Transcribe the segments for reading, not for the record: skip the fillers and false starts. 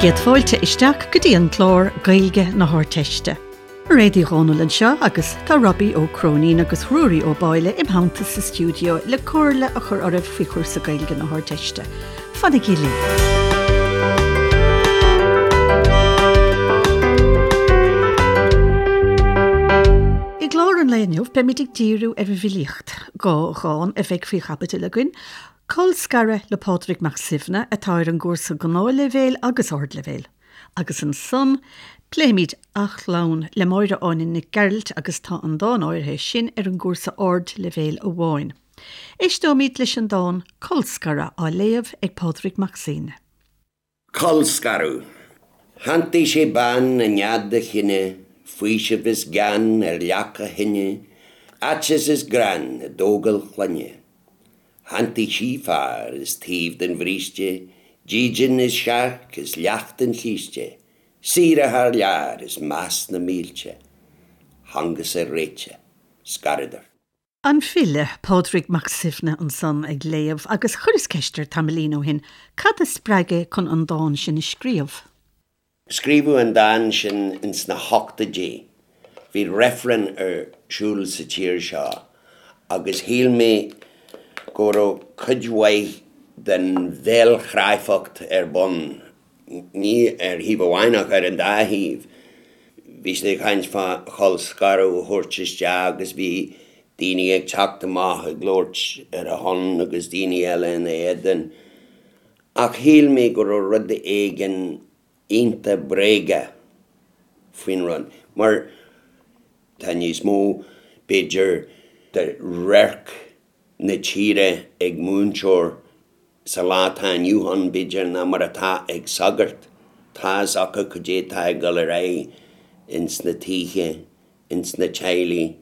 Bhur gcéad fáilte isteach go dtí an clár Gaeilge na hArdteiste. Mairéad Uí Dhomhnaill anseo agus tá Robbie Ó Cróinín agus Ruairí Ó Báille im theannta sa stiúideo le comhairle a chur oraibh faoi chúrsa Gaeilge na hArdteiste. Fanaigí linn! I gclár an lae inniu beimid ag díriú ar an bhfilíocht, 2 dhán a bheidh faoi chaibidil againn, Colscaradh le Pádraig Mac Suibhne atá ar an gcúrsa Gnáthleibhéil agus Ardleibhéil. Agus ansan, pléifimid Athchlann le Máire Áine Nic Gearailt agus tá an dán áirithe sin ar an gcúrsa Ardleibhéil amháin. Éisteoimid leis an dán Colscaradh á léamh ag Pádraig Mac Suibhne. Colscaradh. Shantaigh sé bean i nead a chine, faoiseamh is gean ar leac a thine, aiteas is greann i dtógáil clainne. Shantaigh sí fear is taobh den bhríste, dídean is searc is leacht an chíste, saoire thar lear is meas na mílte. Thángasar réitithe. Scaradar. An file, Pádraig Mac Suibhne ansan ag léamh agus chuireas ceist air tamaillín ó shin cad a spreag é chun an dán sin a scríobh. Scríobhadh an dán sin ins na hochtóidí. Bhí reifreann ar siúl sa tír seo agus shíl mé go raibh cuid mhaith den bhéalchráifeacht ar bun ní ar thaobh amháin ach ar an dá thaobh. Bhí siad ag caint fá cholscaradh a thabhairt isteach agus bhí daoine ag teacht amach ag labhairt ar a shon agus daoine eile ina éadan. Ach shíl mé go raibh rud éigin iontach bréagach faoin rud mar tá níos mó, b'fhéidir, de radharc na tíre ag múinteoir sa lá atá inniu ann, b'fhéidir, ná mar atá ag sagart. Tá fhios acu cad é atá ag dul ar aghaidh ins na tithe, ins na teaghlaigh,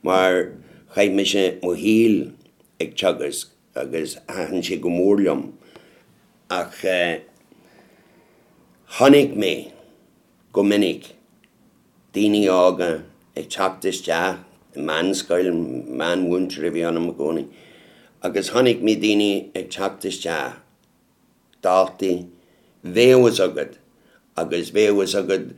mar chaith mise mo shaol ag teagasc agus thaitin sé go mór liom. Ach chonaic mé go minic daoine óga ag teacht isteach i meánscoil, meánmhúinteoir a bhí ionam i gcónaí, agus chonaic mé daoine ag teacht isteach, daltaí, bheadh fhios agat agus bheadh fhios agat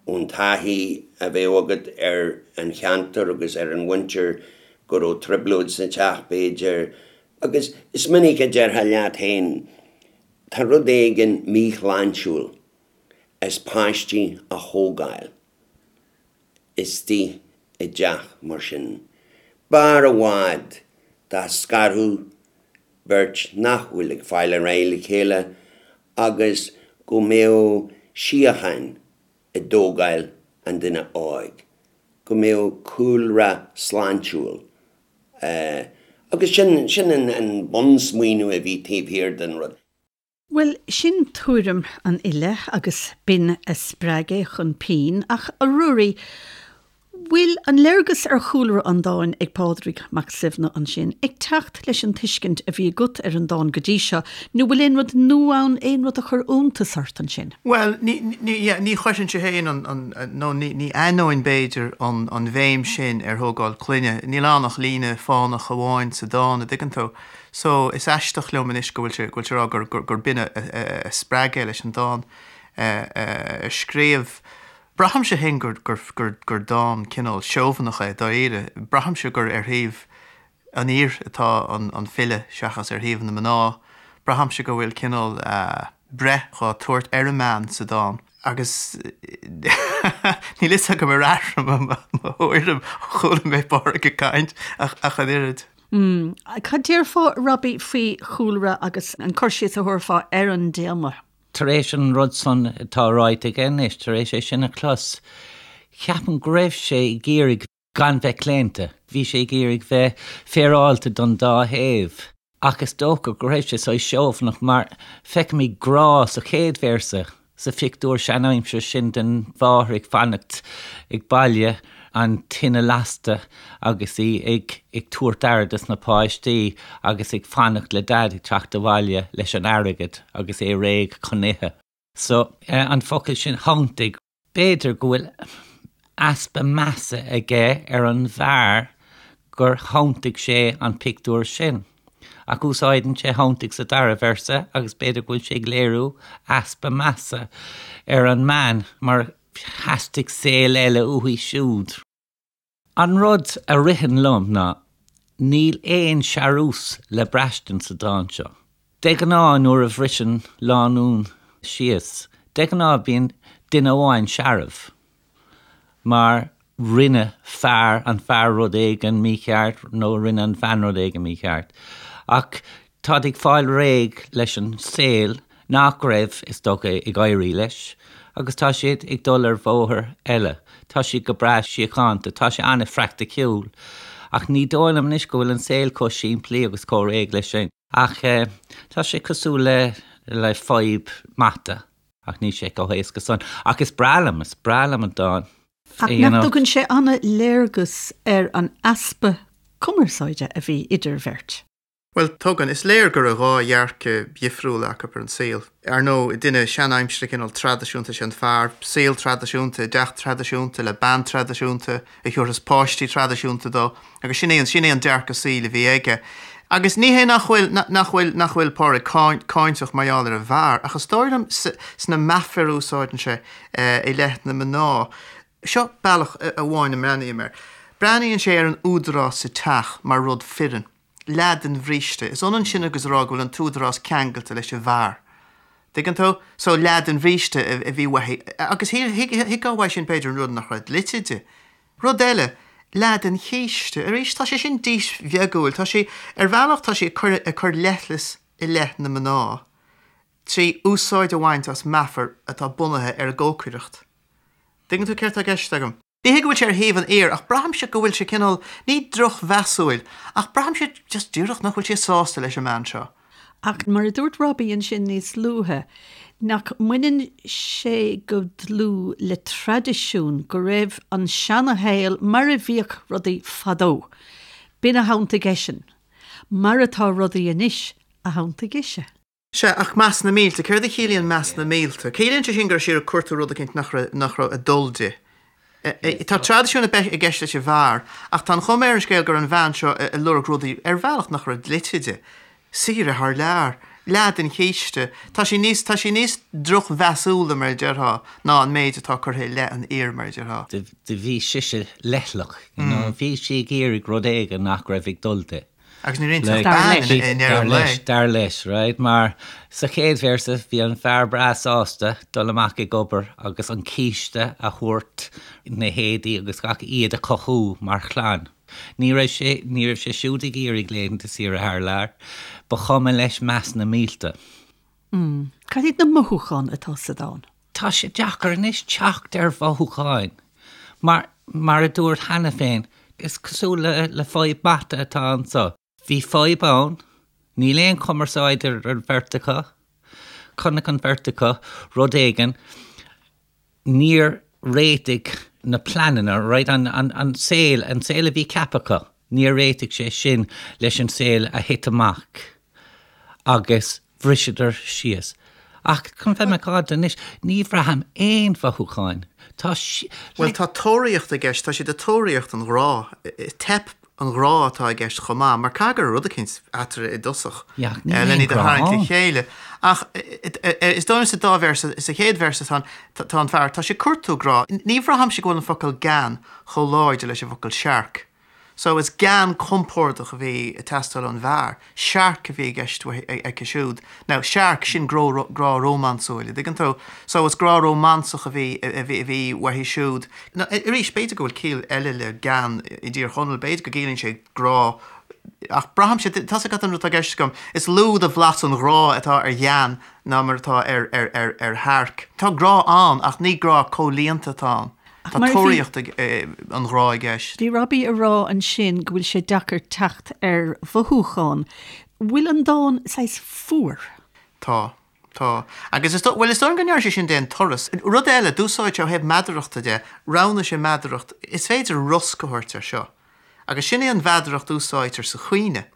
ón taithí a bheadh agat ar an cheantar agus ar an mhuintir go raibh trioblóid sa teach b'fhéidir agus is minic a déarfá leat féin tá rud éigin míshláintiúil as páistí a thógáil istigh i dteach mar sin. B'fhearr i bhfad dá scarfadh beirt nach bhfuil ag fáil ar aghaidh le chéile agus go mbeadh síocháin i dtógáil an duine óig, go mbeadh cúlra sláintiúil agus sin, sin an bunsmaoineamh a bhí taobh thiar den rud. Bhuel, sin tuairim an fhile agus b'in a spreag é chun pinn, ach a Ruairí, bhfuil an léargas ar chúlra an dáin ag Pádraig Mac Suibhne ansin ag teacht leis an tuiscint a bhí agat ar an dán go dtí seo, nó bhfuil aon rud nua ann, aon rud a chuir iontas ort ansin? Bhuel, ní, ní, yeah, ní chuirfinnse féin an, an, nó ní, ní aithneoinn b'fhéidir an, an bhéim sin ar thógáil clainne. Níl ann ach líne fánach amháin sa dán, a dtuigeann tú. So, is aisteach liom anois go bhfuil sé, go bhfuil sé ag rá gur, gur, gur b'in a, a, a spreag é leis an dán a scríobh. Braithimse féin gur, gur, gur, gur dán cineál seobhanach é, dáiríre. Braithimse gur ar thaobh an fhir atá an, an file seachas ar thaobh na mná. Braithimse go bhfuil cineál breith dhá tabhairt ar an mbean sa dán. Agus níl fhios agam ar athraigh mo, mo thuairim ó chuala mé Pádraig ag caint ach, ach an oiread. Mm. Cad déarfá, Robbie, faoi chúlra agus an cur síos a thabharfá ar an dtéama? Tar éis an rud san atá ráite aige anois, tar éis é sin a chlos, ceapaim go raibh sé ag iarraidh gan bheith claonta. Bhí sé ag iarraidh bheith féaráilte don dá thaobh. Ach is dócha go raibh sé saghas seobhanach mar feicimid grá sa chéad véarsa. Sa phictiúr seanaimseartha sin den mháthair ag fanacht ag baile, an tine lasta agus í ag ag tabhairt aire dos na páistí agus ag fanacht le Daid ag teacht abhaile leis an airgead agus é réidh chun ithe. So, an focal sin 'shantaigh', b'fhéidir go bhfuil easpa measa aige ar an bhfear gur shantaigh sé an pictiúr sin. Ach úsáideann sé shantaigh sa dara véarsa agus b'fhéidir go bhfuil sé ag léiriú easpa measa ar an mbean mar theastaigh saol eile uaithi siúd. An rud a ritheann liom ná níl aon searús le braistint sa dán seo. De ghnáth nuair a bhriseann lánúin síos, de ghnáth bíonn duine amháin searbh mar rinne fear, an fear rud éigin mícheart nó rinne an bhean rud éigin mícheart. Ach táid ag fáil réidh leis an saol nach raibh, is dócha, ag éirí leis agus tá siad ag dul ar bhóthar eile. Tá siad go breá síochánta, tá sé an-phraiticiúil. Ach ní dóigh liom anois go bhfuil an saol chomh simplí agus chomh réidh leis sin. Ach tá sé cosúil le le fadhb mata, ach níl sé chomh héasca san. Ach is breá liom, is breá liom an dán. Ach nach dtugann sé an-léargas ar an easpa cumarsáide a bhí idir bheirt? Bhuel, tugann. Is léir go raibh dhá dhearcadh dhifriúla acu ar an saol. Ar ndóigh, duine seanaimseartha cineál traidisiúnta is ea an fear, saol traidisiúnta, i dteach traidisiúnta, le bean traidisiúnta, a thiúrfas páistí traidisiúnta dó, agus sin é an, sin é an dearcadh saoil a bhí aige. Agus ní hé nach bhfuil, nach bhfuil, nach bhfuil Pádraig cáinteach mar gheall ar an bhfear, ach is dóigh liom sna meafair a úsáideann sé i leith na mná, seo bealach amháin a mbreathnaím air. Breathnaíonn sé ar an údarás sa teach mar rud fireann. Leath den bhríste. Is ionann sin agus a rá go bhfuil an t-údarás ceangailte leis an bhfear. Tuigeann tú? So, leath den bhríste a bhí uaithi. Agus thuigfeá uaidh sin, b'fhéidir, an rud nach raibh dlite di. Rud eile, leath den chíste. Arís, tá sé sin dísbheagúil. Tá sé, ar bhealach, tá sé ag cur, ag cur leithleas i leith na mná trí úsáid a bhaint as meafar atá bunaithe ar an gcócaireacht. Tuigeann tú céard tá i gceist agam? Ní hé go bhfuil sé ar thaobh an fhir, ach braithimse go bhfuil sé cineál, ní drochmheasúil, ach braithimse just díreach nach bhfuil sé sásta leis an mbean seo. Ach mar a dúirt Robbie ansin níos luaithe, nach mbaineann sé go dlúth le traidisiún, go raibh an seanashaol mar a bhíodh rudaí fadó. B'in a shantaigh eisean. Mar atá rudaí anois a shantaigh ise. Sea, ach meas na mílte, céard a chiallaíonn meas na mílte? Ciallaíonn sé sin go raibh sí ag cuartú rud eicínt nach raibh, nach raibh ag dul di. Tá traidisiún i gceist leis an bhfear, ach tá an chuma ar an scéal go raibh an bhean seo ag lorg rudaí ar bhealach nach raibh dlite di. Saoire thar lear. Leath den chíste. Tá sí níos, tá sí níos drochmheasúla, mar a déarfá, ná an méid atá curtha i leith an fhir, mar a déarfá. Do bhí sise leithleach, you know, bhí sí ag iarraidh rud éigin nach raibh ag dul di. Agus ní raibh ach bean i ndeireadh an lae. Dar leis, right? Mar sa chéad véarsa bhí an fear breá sásta dul amach ag obair agus an císte a thabhairt, na héadaí agus gach, iad a chothú mar chlann. Ní raibh sé, ní raibh sé siúd ag iarraidh laethanta saoire thar lear. Ba chuma leis meas na mílte. Mm. Cad iad na mothúcháin atá sa dán? Tá sé deacair anois teacht ar mhothúcháin. Mar, mar a dúirt cheana féin, is cosúil le, le fadhb mata atá anso. Bhí fadhb ann, níl aon chumarsáid idir an bheirt acu, chonaic an bheirt acu rud éigin, níor réitigh na pleananna, right, an, an, an saol, an saol a bhí ceaptha acu, níor réitigh sé sin leis an saol a thit amach agus bhriseadar síos. Ach chun bheith macánta anois, ní bhraithim aon mhothúcháin. Tá sí, Bhuel, tá tóraíocht i gceist, tá siad ag tóraíocht an ghrá. Teip an ghrá atá i gceist chomh maith, mar caithfidh go raibh rud eicínt eatarthu i dtosach len iad a tharraingt le chéile. Ach is dóigh liom sa dá véarsa, sa chéad véarsa tá tá an fear, tá sé ag cuartú grá. Ní bhraithimse go bhfuil an focal gean chomh láidir leis an bhfocal searc. So is gean compordach a bhí ag teastáil ón bhfear, searc a bhí i gceist aici siúd. Now, searc, sin grá rómánsúil, an dtuigeann tú? So is grá rómánsach a bhí, a bhí, a bhí uaithi siúd. Now, arís, b'fhéidir go bhfuil ciall eile le gean i dTír Chonaill, b'fhéidir go gciallaíonn sé grá, ach braithimse, tá's agat an rud atá i gceist agam, is lú de bhlas an ghrá atá ar ghean ná mar atá ar, ar, ar, ar shearc. Tá grá ann ach ní grá comhlíonta atá ann. Tá tóraíocht an ghrá i gceist. Bhí Robbie ag rá ansin go bhfuil sé deacair teacht ar mhothúcháin. Bhfuil an dán saghas fuar? Tá. Tá. Agus is dóigh, bhuel, is dóigh liom go ndearna sé sin d'aon turas. Rud eile, d'úsáid sé ó thaobh meadarachta de, roghnaigh sé meadaracht, is féidir rosc a thabhairt air seo. Agus sin é an mheadaracht a úsáidtear sa chaoineadh.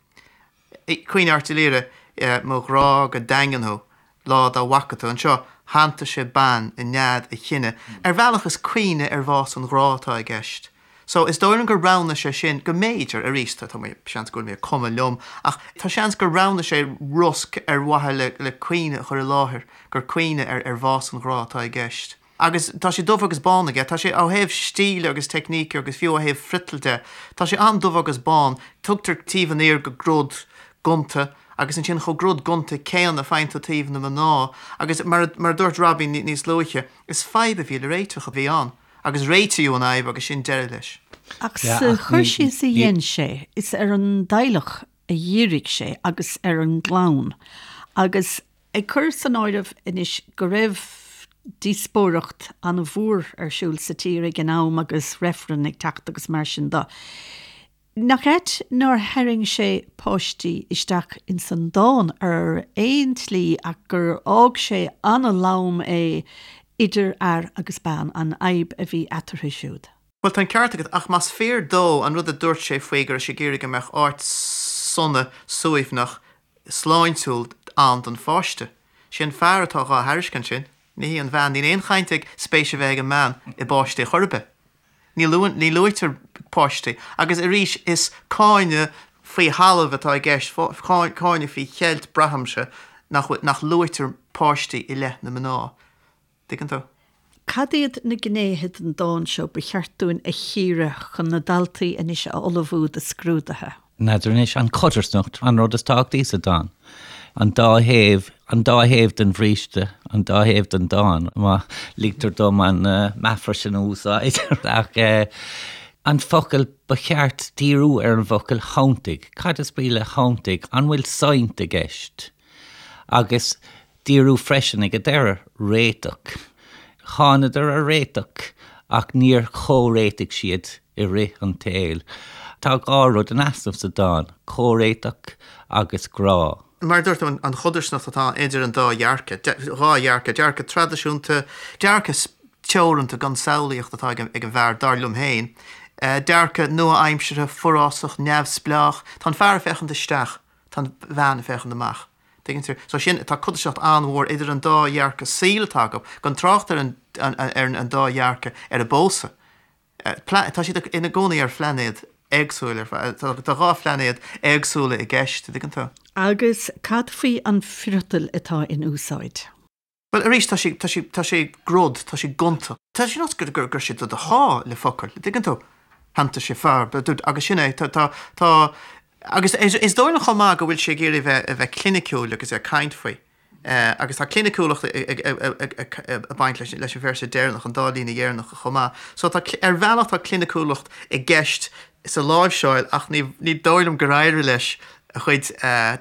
Caoineadh Airt Uí Laoghaire, Mo ghrá go daingean thú, lá dá bhfaca tú. Anseo, shantaigh sé bean i nead a chine. Ar bhealach is caoineadh ar bhás an ghrá atá i gceist. So, is dóigh liom gur roghnaigh sé sin, go mb'fhéidir, arís, tá mé, seans go bhfuil mé ag cumadh liom, ach tá seans gur roghnaigh sé rosc ar mhaithe le, le caoineadh a chur i láthair, gur caoineadh ar, ar bhás an ghrá atá i gceist. Agus tá sé dubh agus bán aige, tá sé ó thaobh stíle agus teicníce agus fiú ó thaobh friotail de, tá sé an-dubh agus bán, tugtar taobh an fhir go grod gonta agus ansin chomh grod gonta céanna faigheann tú taobh na mná agus mar a dúirt Robbie níos luaithe, is fadhb a bhí le réiteach a bhí ann agus réitíodh an fhadhb agus sin deireadh leis. Ach sa chur síos a dhein sé, is ar an dteaghlach a dhírigh sé agus ar an gclann agus Ag cur san áireamh anois go raibh díospóireacht an-mhór ar siúl sa tír ag an am agus reifreann ag teacht agus mar sin de, nach ait nár tharraing sé páistí isteach ins an dán ar aon tslí ach gur fhág sé an-lom é idir fhear agus bean, an fhadhb a bhí eatarthu siúd. Bhuel, tá an ceart agat, ach más fíor dó an rud a dúirt sé faoi go raibh sé ag iarraidh go mbeadh áit sona, suaimhneach, sláintiúil ann don pháiste. Sé an fear atá dhá thairiscint sin, ní hí an bhean. Níl aon chaint ag spéis a bheith ag an mbean i bpáistí chor ar bith. Ní luann, ní luaitear páistí. Agus arís, is cáineadh faoi thalamh atá i gceist, cáineadh faoi cheilt, braithimse, nach bhfuil, nach luaitear páistí i leith na mná. Tuigeann tú? Cad iad na gnéithe den dán seo ba cheart dúinn a chíoradh chun na daltaí anois a ullmhú do scrúduithe? N'fheadar anois, an chodarsnacht, an rud is tábhachtaí sa dán. An dá thaobh, an dá thaobh den bhríste, an dá thaobh den dán, má ligtear dom an meafar sin a úsáid. Ach an focal, ba cheart díriú ar an bhfocal 'shantaigh'. Cad is brí le 'shantaigh'? An bhfuil saint i gceist? Agus díriú freisin ag an deireadh, réiteach. Thánadar ar réiteach ach níor chomhréitigh siad i rith an tsaoil. Tá 2 rud in easnamh sa dán, comhréiteach agus grá. Mar a dúirt tú, an chodarsnacht atá idir an dá dhearcadh, 2 dhearcadh, dearcadh traidisiúnta, dearcadh teoranta gan samhlaíocht atá ag an bhfear, dar liom féin, dearcadh nua-aimseartha, forásach, neamhspleách. Tá an fear ag féachaint isteach, tá an bhean ag féachaint amach. Tuigeann tú? So sin, tá codarsnacht an-mhór idir an dá dhearcadh saoil atá acu, gan trácht ar an, ar an dá dhearcadh ar an bpósadh. Tá siad ina gcónaí ar phlainéad éagsúil ar fad, tá 2 phlainéad éagsúla i gceist, tuigeann tú? Agus cad faoi an friotal atá in úsáid? Bhuel, arís, tá sé, tá sé, tá sé grod, tá sé gonta. Tá sé nós gur, gur, gur sé do do shá le focail, an dtuigeann tú? Shantaigh sé fear, agus sin é, tá, tá, tá, agus is, is dóigh liom chomh maith go bhfuil sé ag iarraidh bheith, a bheith cliniciúil agus é ag caint faoi. Agus tá cliniciúlacht ag, ag, ag, ag, ag baint leis, leis an véarsa deireanach, an dá líne dheireanacha chomh maith. So tá, ar bhealach tá cliniciúlacht i gceist sa láimhseáil ach ní, ní dóigh liom gur éirigh leis a chuid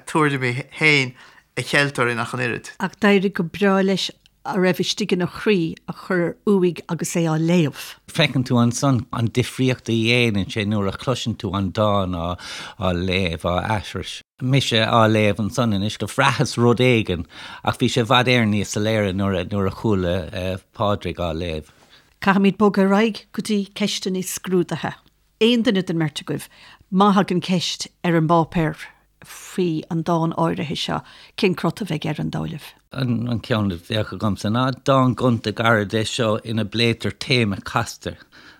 tuairimí féin a cheilt orainn ach an oiread. Ach d'éirigh go breá leis a raibh istigh ina chroí a chur uaidh agus é á léamh. Feiceann tú ansan an difríocht a dhéanann sé nuair a chloiseann tú an dán á léamh, á aithris. Mise á léamh ansan anois, do bhraitheas rud éigin ach bhí sé i bhfad Éireann níos soiléire nuair a chuala Pádraig á léamh. Caithfimid bogadh ar aghaidh go dtí ceisteanna scrúdaithe. Aon duine den mbeirt agaibh, má thagann ceist ar an bpáipéar faoi an dán áirithe seo, cén crot a bheidh air, an dóigh libh? An ceann a bheadh agamsa ná dán gonta gairid é seo ina bpléitear téama casta,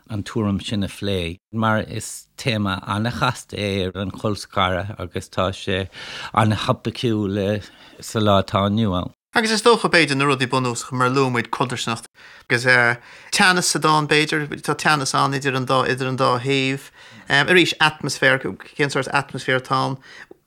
an tuairim sin a phlé, mar is téama an-chasta é an colscaradh agus tá sé an-thopaiciúil sa lá atá inniu ann. Agus is dócha, b'fhéidir, na rudaí bunúsacha, mar a luaigh muid, codarsnacht agus teannas sa dán, b'fhéidir, tá teannas ann idir an dá, idir an dá thaobh. Arís, atmaisféar, cén sórt atmaisféar atá ann?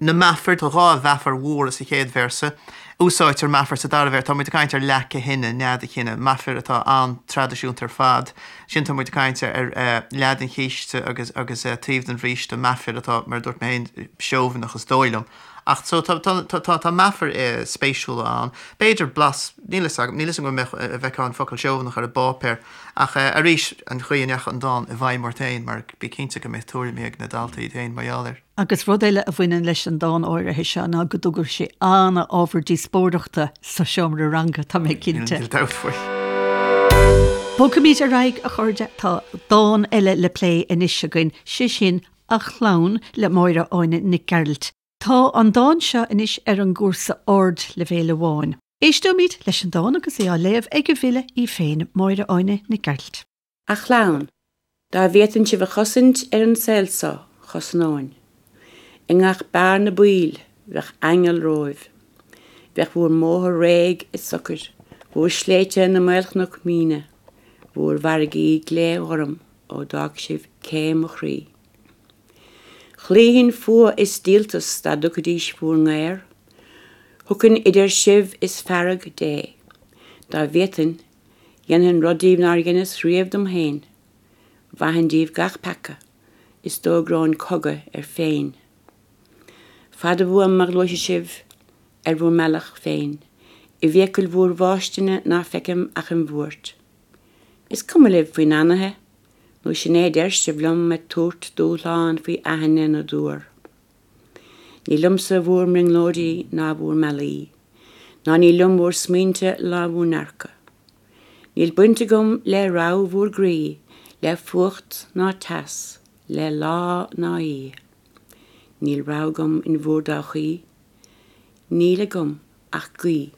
Na meafair, tá 2 mheafar mhóra sa chéad véarsa. Úsáidtear meafar sa dara véarsa, tá muid ag caint ar leac a thine, nead a chine, meafair atá an-traidisiúnta ar fad. Ansin tá muid ag caint ar leath den chíste agus, agus taobh den bhríste, meafair atá, mar a dúirt mé féin, seobhaineach is dóigh liom. Ach so tá tá tá tá meafair spéisiúla ann. B'fhéidir blas, níl fhios agam, níl fhios agam an mbeadh a bhfeicfeá an focal seobhaineach ar an bpáipéar ach arís an chaoi a ndeachaigh an dán i bhfeidhm ort féin mar bí cinnte go mbeidh tuairimí ag na daltaí iad féin mar gheall air. Agus rud eile a bhaineann leis an dán áirithe seo ná go dtugadh sé an-ábhar díospóireachta sa seomra ranga, tá mé cinnte. Níl dabht faoi. Bogfaimid ar aghaidh, a chairde, tá dán eile le plé anois againn, sé sin A Chlann le Máire Áine Nic Gearailt. Tá an dán seo anois ar an gcúrsa ardleibhéil amháin. Éisteoimid leis an dán agus é á léamh ag an bhfile í féin, Máire Áine Nic Gearailt. A Chlann. Dá bhféadfainn sibh a chosaint ar an saol so, chosnóinn. I ngach bearna baoil, bheadh aingeal romhaibh. Bheadh bhúr mbóthar réidh is socair, bhúr sléibhte ina maolchnoic míne, bhúr bhfarraigí glé-ghorm ó d'fhág sibh cé mo chroí. Chloífinn fuath is díoltas dá dtugfaidís bhúr ngaor. Thiocfainn idir sibh is fearg Dé. Dá bhféadfainn, Dhéanfainn rud díbh nár dheineas riamh dom féin. Mhaithfinn díbh gach peaca, is d'fhógróinn cogadh air féin. Fada uaim má ghluaisfidh sibh ar bhúr mbealach féin, i bhfiacail bhúr bhfáistine ná feicim ach an bhuairt. Is cuma libh faoi n-anaithe, nó sin é a deir sibh liom ag tabhairt dúshlán faoi aithinne na dtuar. Ní liomsa bhúr mbrionglóidí ná bhúr mbealaí, ná ní liom bhúr smaointe ná bhúr ndearcadh. Níl baint agam le rogha bhúr gcroí, le fuacht ná teas, le lá ná oíche. Níl rogha agam in bhúr dtodhchaí, níl agam ach guí.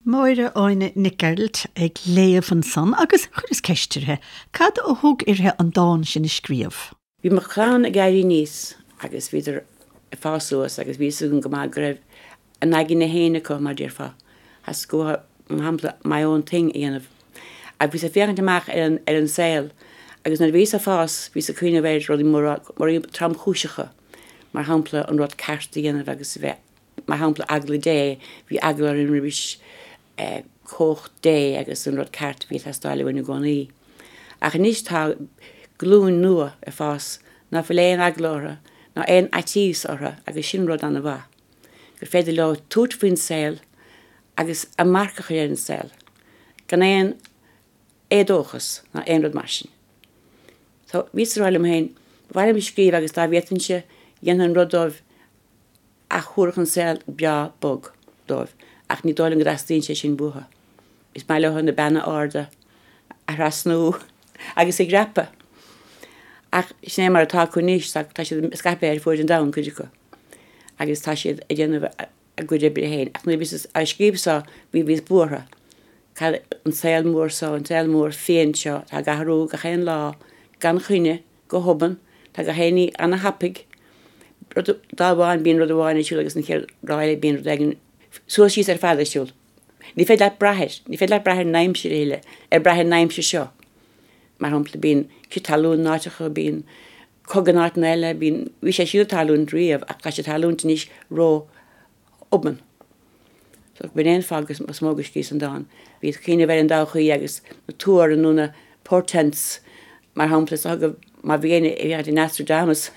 Máire Áine Nic Gearailt ag léamh ansan agus chuireas ceist uirthi, cad a thug uirthi an dán sin a scríobh? Bhí mo chlann ag éirí aníos agus bhíodar ag fás suas agus bhí fhios agam go maith go raibh a n-aigne féin acu, mar déarfá. Theastaigh uathu, mar shampla, my own thing a dhéanamh. Ach bhíos ag féachaint amach ar an, ar an saol agus nuair a bhíos ag fás, bhíos ag cuimhneamh ar rudaí móra, rudaí tromchúiseacha, mar shampla an rud ceart a dhéanamh agus a bheith Mar shampla, eagla Dé, bhí eagla orainn roimis chumhacht Dé agus an rud ceart a bhí ag teastáil uainn i gcónaí. Ach anois tá glúin nua ag fás ná fuil aon eagla orthu ná aon fhaitíos orthu agus sin rud an-mhaith, gur féidir leo tabhairt faoin saol agus a marc a chur ar an saol gan aon éadóchas ná aon rud mar sin. So, bhíos ag rá liom féin, ba mhaith liom scríobh agus dá bhféadfainnse, dhéanfainn rud dóibh a thabharfadh an saol breá bog dóibh ach ní dóigh liom go dteastaíonn sé sin uathu. Is maith leo na beanna arda a thrasnú agus a dhreapadh. Ach sin é mar atá acu anois, tá siad scaipthe ar fuaid an domhain, cuid acu, agus tá siad ag déanamh a gcuid oibre féin. Ach nuair a bhíos á scríobh so, bhí bhíos buartha. Cad an saol mór so, an saol mór fiáin seo, atá ag athrú gach aon lá gan choinne, Go hobann, tá gach aon ní ana-thapaidh. Rud, lá amháin bíonn rud amháin ar siúl agus an chéad lá eile bíonn rud éigin suas síos ar fad ar siúl. Ní féidir leat brath air, ní féidir leat brath ar an aimsir a thuilleadh, ar brath ar an aimsir seo. Mar shampla, bíonn crith talún in áiteacha, bíonn cogadh in áiteanna eile, bíonn, bhí sé sin ag tarlúint riamh ach tá sé ag tarlúint anois ró obann. So b'in é an fáth is mó go scríos an dán. Bhíos ag cuimhneamh ar an dtodhchaí agus na tuar nó na portents mar shampla is dócha má bhí éinne ag féachaint ar Nostradamus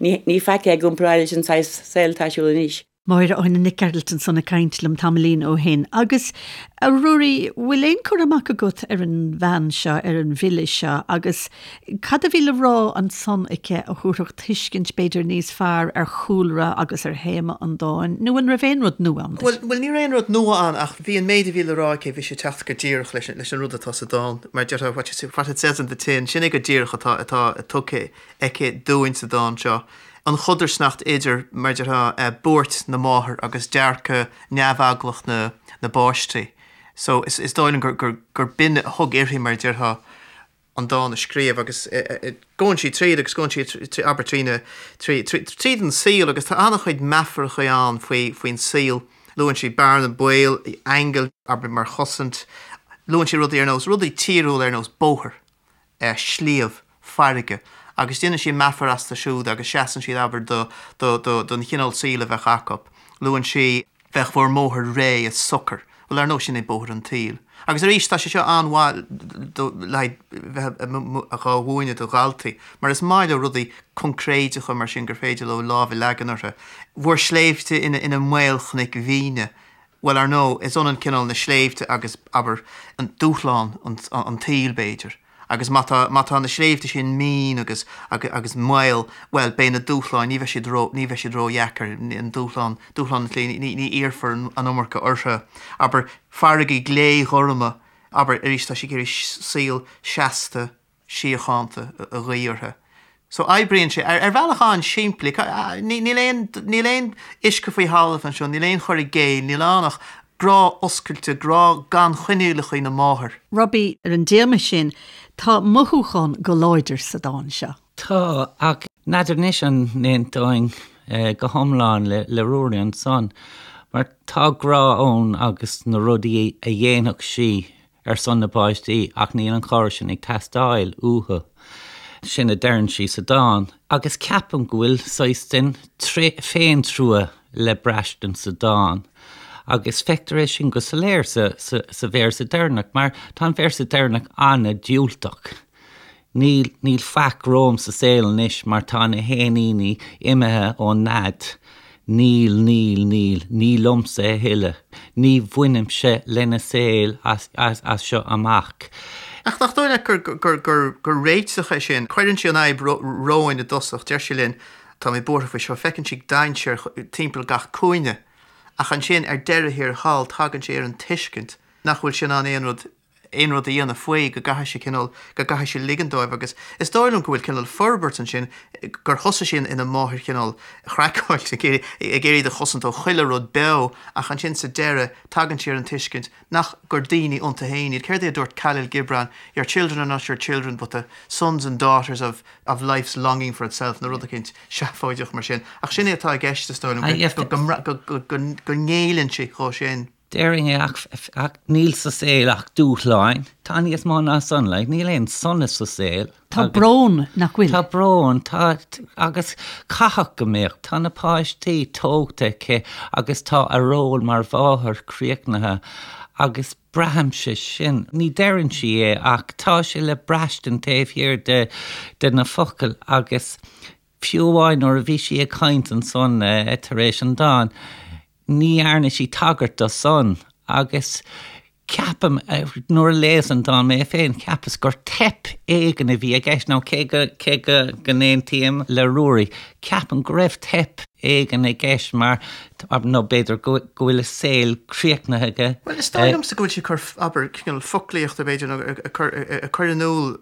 ní faic é i gcomparáid leis an saghas saoil atá ar siúl anois. Máire Áine Nic Gearailt ansan ag caint liom tamaillín ó shin. Agus, a Ruairí, bhfuil aon cur amach agat ar an bhean seo, ar an bhfile seo, agus Cad a bhí le rá ansan aici a thabharfadh tuiscint b'fhéidir níos fearr ar chúlra agus ar théama an dáin, nó an raibh aon rud nua ann duit? Bhuel, ní raibh aon rud nua ann ach bhí an méid a bhí le rá aici, bhí sé ag teacht go díreach leis an rud atá sa dán. Mar a déarfá, what it says in the tin, sin é go díreach atá atá tugtha aici dúinn sa dán seo. An chodarsnacht idir, mar a déarfá, buairt na máthar agus dearcadh neamheaglach na na bpáistí. So, is dóigh liom gur gur gur b'in a thug uirthi, mar a déarfá, an dán a scríobh agus gabhann sí tríd agus gabhann sí abair trí na tríd an saol agus tá an-chuid meafaracha ann faoi faoin saol. Luann sí bearna baoil, aingil, abair mar chosaint. Luann sí rudaí ar nós rudaí tíriúla ar nós bóthar, sliabh, farraige agus déanann sí meafar astu siúd agus seasann siad abair do do do don chineál saoil a bheadh acu. Luann sí. Bheadh bhur mbóthar réidh is socair. Bhuel, ar ndóigh, sin é bóthar an tsaoil. Agus arís, tá sé seo an-mhaith le haghaidh bheith dhá mhúineadh do dhaltaí, mar is maith leo rudaí coincréideacha mar sin gur féidir leo lámh a leagan orthu. Bhur sléibhte ina maolchnoic mhíne. Bhuel, ar ndóigh, is ionann cineál na sléibhte agus, abair, an dúshlán an tsaoil, b'fhéidir. Agus má tá, má tá na sléibhte sin mín agus, agus maol, bhuel, beidh na dúshláin, ní bheidh siad ró, ní bheidh siad ródheacair, an dúshlán, dúshlán an tsaoil, ní, ní iarrfar an iomarca orthu. Abair, farraigí glé-ghorma, abair, arís tá sí ag iarraidh saol seasta, síochánta a ghuí orthu. So oibríonn sé ar, ar bhealach an-simplí. Níl aon, níl aon uisce faoi thalamh anseo, níl aon chur i gcéill, níl ann ach. Grá oscailte, grá gan choinníollacha na máthar. Robbie, ar an dtéama sin, tá mothúchán go láidir sa dán seo. Tá, ach n'fheadar anois an n-aontóinn go hiomlán le Ruairí ansan, mar tá grá ann agus na rudaí a dhéanfadh sí ar son na bpáistí ach níl an chabhair sin ag teastáil uathu. Sin a deireann sí sa dán. Agus ceapaim go bhfuil saghas den féintrua le braistint sa dán. Agus feictear é sin go soiléir sa véarsa deireanach, mar tá an véarsa deireanach an-diúltach. Níl, níl faic romham sa saol anois mar tá na héiníní imithe ón nead. Níl, níl, níl, ní liomsa a thuilleadh. Ní bhainimse lena saol as, as, as seo amach. Ach nach dóigh leat gur, gur, gur, gur réiteach é sin? Cuireann sí an fhadhb romhainn i dtosach, deir sí linn, tá mé buartha faoi seo, feiceann sí dainséar timpeall gach cúinne. Ach ansin, ar deireadh thiar thall, tagann sí ar an tuiscint nach bhfuil sí in ann aon rud aon rud a dhéanamh faoi, go gcaithfidh sí cineál, go gcaithfidh sí ligean dóibh agus is dóigh liom go bhfuil cineál forbairt ansin, gur thosaigh sí ina máthair chineál chraiceáilte, ag iarraidh, ag iarraidh iad a chosaint ó chuile rud beo ach ansin sa deireadh tagann sí ar an tuiscint nach, gur daoine iontu féin iad. Céard é a dúirt Khalil Gibran, your children are not your children but the sons and daughters of, of life's longing for itself nó rud eicínt seafóideach mar sin. Ach sin é atá i gceist is dóigh liom, go, go, go, go, go ngéilleann sí dhó sin. Déarfainn é ach, ach níl sa saol ach dúshláin. Tá níos mó ná san, like, níl aon sonas sa saol. Tá brón, nach bhfuil? Tá brón, tá, agus caithfidh go mbeadh. Tá na páistí tógtha aici agus tá a ról mar mháthair críochnaithe agus braithimse sin. Ní deireann sí é ach tá sé le braistint taobh thiar de, de na focail agus fiú amháin nuair a bhí sí ag caint ansan tar éis an dáin, Ní dhearna sí tagairt do san agus ceapaim, nuair a léas an dán mé féin, cheapas gur teip éigin a bhí i gceist, nó cé go, cé go, go n-aontaím le Ruairí, ceapaim go raibh teip éigin i gceist mar, nó b'fhéidir go, go bhfuil a saol críochnaithe aige. Bhuel, is dóigh liomsa go bhfuil sí ag cur, abair, cineál foclaíochta, b'fhéidir, nó ag cur, ag cur in iúl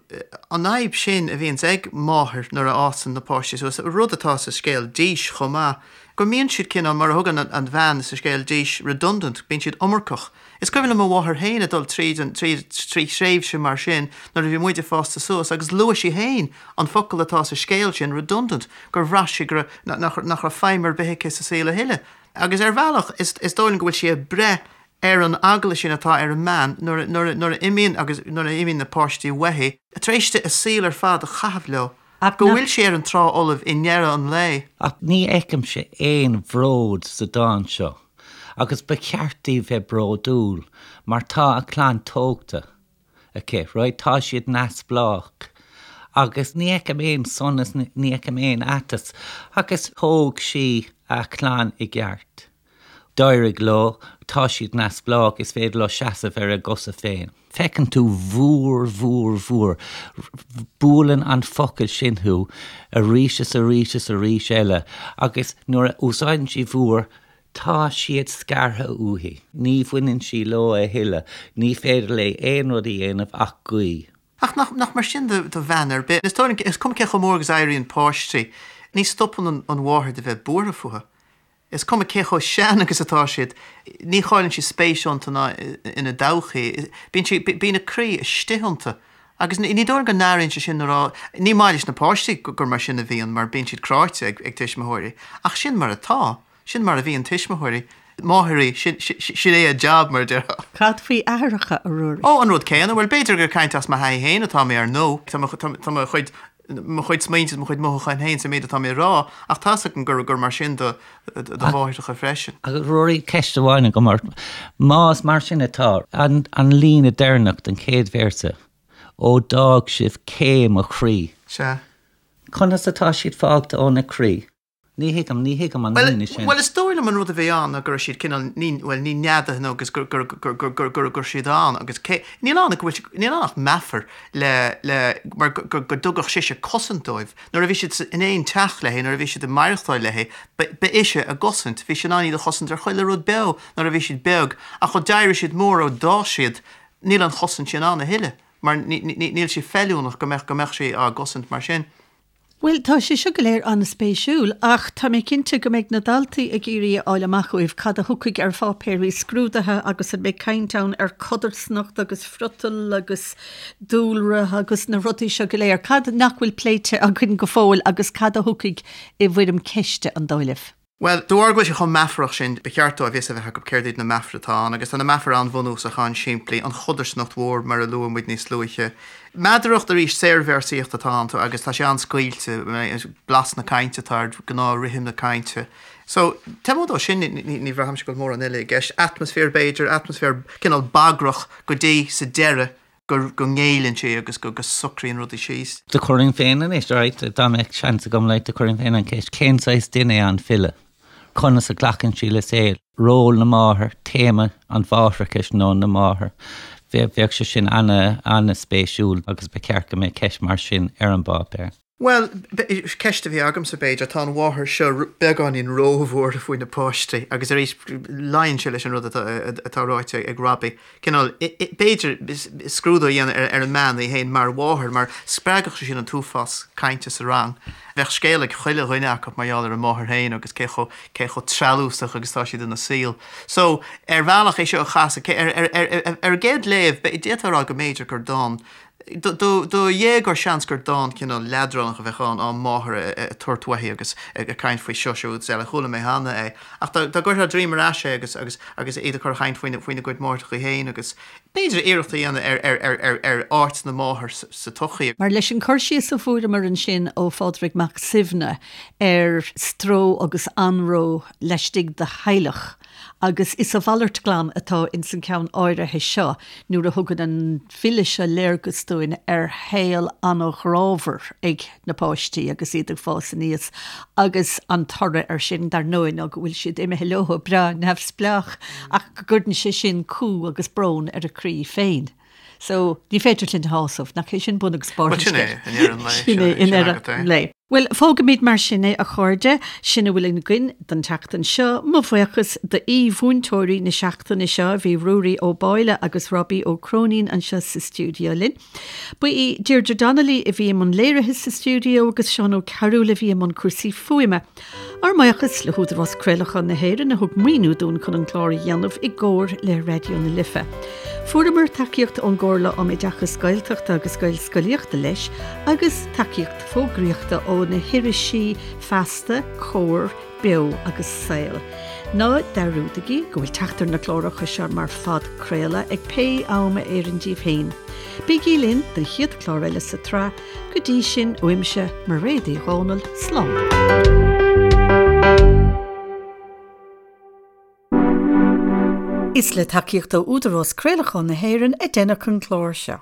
an fhadhb sin a bhíonns ag máthair nuair a fhásann na páistí suas, rud atá sa scéal Dís chomh maith, Go mbíonn siad cineál, mar a thugann an bhean sa scéal Dís, redundant, bíonn siad iomarcach. Is cuimhin liom mo mháthair féin ag dul tríd an, tríd, trí thréimhse mar sin nuair a bhí muid ag fásta suas agus luaigh sí féin an focal atá sa scéal sin, redundant, gur bhraith sí go raibh, nach, nach raibh feidhm ar bith aici sa saol a thuilleadh. Agus ar bhealach, is, is dóigh liom go bhfuil sí ag breith ar an eagla sin atá ar an mbean nuair a, nuair a, nuair a imíonn agus nuair a imíonn na páistí uaithi, tar éis di a saol ar fad a chaitheamh leo. Ach go bhfuil sí ar an trá fholamh i ndeireadh an lae. Ach ní fheicimse aon bhród sa dán seo, agus ba cheart di bheith bródúil, mar tá a clann tógtha aici, right, tá siad neamhspleách, agus ní fheicim aon sonas, ní fheicim aon aiteas, agus thóg sí a clann i gceart. D'éirigh leo, tá siad neamhspleách, is féidir leo seasamh ar a gcosa féin. Feiceann tú bhúr, bhúr, bhúr. Buaileann an focal sin thú arís is arís is arís eile agus nuair a úsáideann sí bhúr, tá siad scartha uaithi. Ní bhaineann sí leo a thuilleadh. Ní féidir léi aon rud a dhéanamh ach guí. Ach nach, nach mar sin do, do bhean ar bith. Is dóigh liom, is cuma cé chomh mór agus a éiríonn páistí, ní stopann an, an mháthair de bheith buartha fúthu. Is cuma cé chomh sean agus atá siad, ní chailleann sí spéis iontu ná ina dtodhchaí. Bíonn sí, bíonn a croí istigh iontu. Agus ní dóigh liom go n-airíonn sí sin nuair a, ní maith leis na páistí gur mar sin a bhíonn mar bíonn siad cráite ag ag tuismitheoirí. Ach sin mar atá. Sin mar a bhíonn tuismitheoirí. Máithrí, sin, sin é a jab mar a déarfá. Cad faoi aithreacha, a Ruairí? Ó, an rud céanna. Bhuel, b'fhéidir gur ag caint as mo thaithí féin atá mé ar ndóigh. Tá mo, tá mo chuid mo chuid smaointe is mo chuid mothúchán féin sa méid atá mé a rá, ach tá's agam gur gur mar sin do do mháithreacha freisin. Agus Ruairí, ceist amháin agam ort. Más mar sin atá, an an líne deireanach den chéad véarsa, Ó d'fhág sibh cé mo chroí. Sea. Conas atá siad fágtha óna croí? Ní thuigim, ní thuigim an líne sin. Bhuel, is dóigh liom an rud a bhí ann ná go raibh siad cineál, ní, bhuel, ní neadaithe nó agus gur, gur, gur, gur, gur, gur, gur siad ann agus cé, níl ann ach go bhfuil, níl ann ach meafar le, le, mar go, go, go dtugadh sise cosaint dóibh. Nuair a bhí siad sa, in aon teach léi, nuair a bhí siad ag maireachtáil léi, ba, ba ise a gcosaint. Bhí sí in ann iad a chosaint ar chuile rud beo nuair a bhí siad beag ach ó d'éirigh siad mór, ó d'fhás siad, níl an chosaint sin ann a thuilleadh mar ní, ní, níl sí feiliúnach go mbeadh, go mbeadh sí á gcosaint mar sin. Bhuel, tá sé seo go léir an-spéisiúil, ach tá mé cinnte go mbeidh na daltaí ag iarraidh a fháil amach uaibh cad a thiocfaidh ar pháipéirí scrúdaithe agus an mbeidh caint ann ar codarsnacht agus friotal agus dúlra agus na rudaí seo go léir. Cad nach bhfuil pléite againn go fóill agus cad a thiocfaidh i bhfoirm ceiste, an dóigh libh? Bhuel, de bharr go bhfuil sé chomh meafarach sin, ba cheart dóibh fhios a bheith acu céard iad na meafair atá ann, agus tá na meafair an-bhunúsach, an-simplí, an chodarsnacht mhór, mar a luaigh muid níos luaithe. Meadaracht, arís, saorvéarsaíocht atá iontu agus tá sé an-scaoilte, blas na cainte atá air, gnáth-rithim na cainte. So, taobh amuigh dó sin, ní bhraithimse go bhfuil mórán eile i gceist. Atmaisféar, b'fhéidir, atmaisféar cineál bagrach go dtí sa deireadh go go ngéilleann sí agus go go socraíonn rudaí síos. Do chuirfinn féin anois, alright, dá mbeadh seans agam, like, do chuirfinn féin an cheist, cén saghas duine é an file? Conas a ghlacann sí le saol? Ról na máthar, téama an mháithreachais nó na máthar, bheadh sé sin ana, ana-spéisiúil agus ba cheart go mbeadh ceist mar sin ar an bpáipéar. Bhuel, ceist a bhí agamsa, b'fhéidir, tá an mháthair seo beagáinín róbhuartha faoi na páistí agus arís luíonn sé leis an rud atá ráite ag Robbie. Cineál, b'fhéidir, scrúdú a dhéanamh ar an mbean í féin mar mháthair mar spreagfadh sé sin an t-uafás cainte sa rang. Bheadh scéal ag chuile dhuine acu mar gheall ar a máthair féin agus cé chomh, cé chomh treallúsach agus atá siad ina saol. So, ar bhealach é seo a chasadh, ar an gcéad léamh, d'fhéadfá a rá go mb'fhéidir gur dán Do dhéagóir seans gur dán cineál leadránach a bheadh ann, á máthair ag tabhairt uaithi agus ag caint faoi seo, siúd is eile. Chuala mé cheana é. Ach dá gcuirfeá droim ar ais é agus agus agus iad ag cur a chaint faoina faoina gcuid máithreacha féin agus b'fhéidir iarracht a dhéanamh ar ar ar ar ar áit na máthar sa tsochaí. Mar leis an cur síos a fuaireamar ansin ó Phádraig Mac Suibhne ar stró agus anró laistigh de theaghlach, Agus is a mhalairt glan atá ins an ceann áirithe seo nuair a thugann an file seo léargas dúinn ar shaol an-ghrámhar ag na páistí agus iad ag fás aníos agus an toradh air sin, dar ndóigh, ná go bhfuil siad imithe leo breá neamhspleách ach go gcuireann sé sin cumha agus brón ar a croí féin. So, ní féidir linn a shásamh, nach é sin bun agus barr an scéil? Bhuel, sin é, i ndeireadh an lae. Sin é, i ndeireadh an lae. Bhuel, fágfaimid mar sin é, a chairde. Sin a bhfuil againn don tseachtain seo. Mo bhuíochas d'aoi-mhúinteoirí na seachtaine seo, bhí Ruairí Ó Báille agus Robbie Ó Cróinín anseo sa stiúideo linn. Ba í Deirdre Donnelly a bhí i mbun léirithe sa stiúideo agus Seán Ó Cearúil a bhí i mbun cúrsaí fuaime. Ár mbuíochas le hÚdarás Craolacháin na hÉireann a thug maoiniú dúinn chun an clár a dhéanamh i gcomhar le Raidió na Life. Fuaireamar tacaíocht ón gComhairle um Oideachas Gaeltachta agus Gaelscolaíochta leis agus tacaíocht fógraíochta ó na hirisí Feasta, Comhar, Beo agus Saol. Ná dearúdaigí go bhfuil teacht ar na cláracha seo mar phodchraoladh ag pé am a oireann díbh féin. Bígí linn don chéad chlár eile sa tsraith Go dtí sin, uaimse, Mairéad Uí Dhomhnaill, slán. Is le tacaíocht ó Údarás Craolacháin na hÉireann a deineadh an clár seo.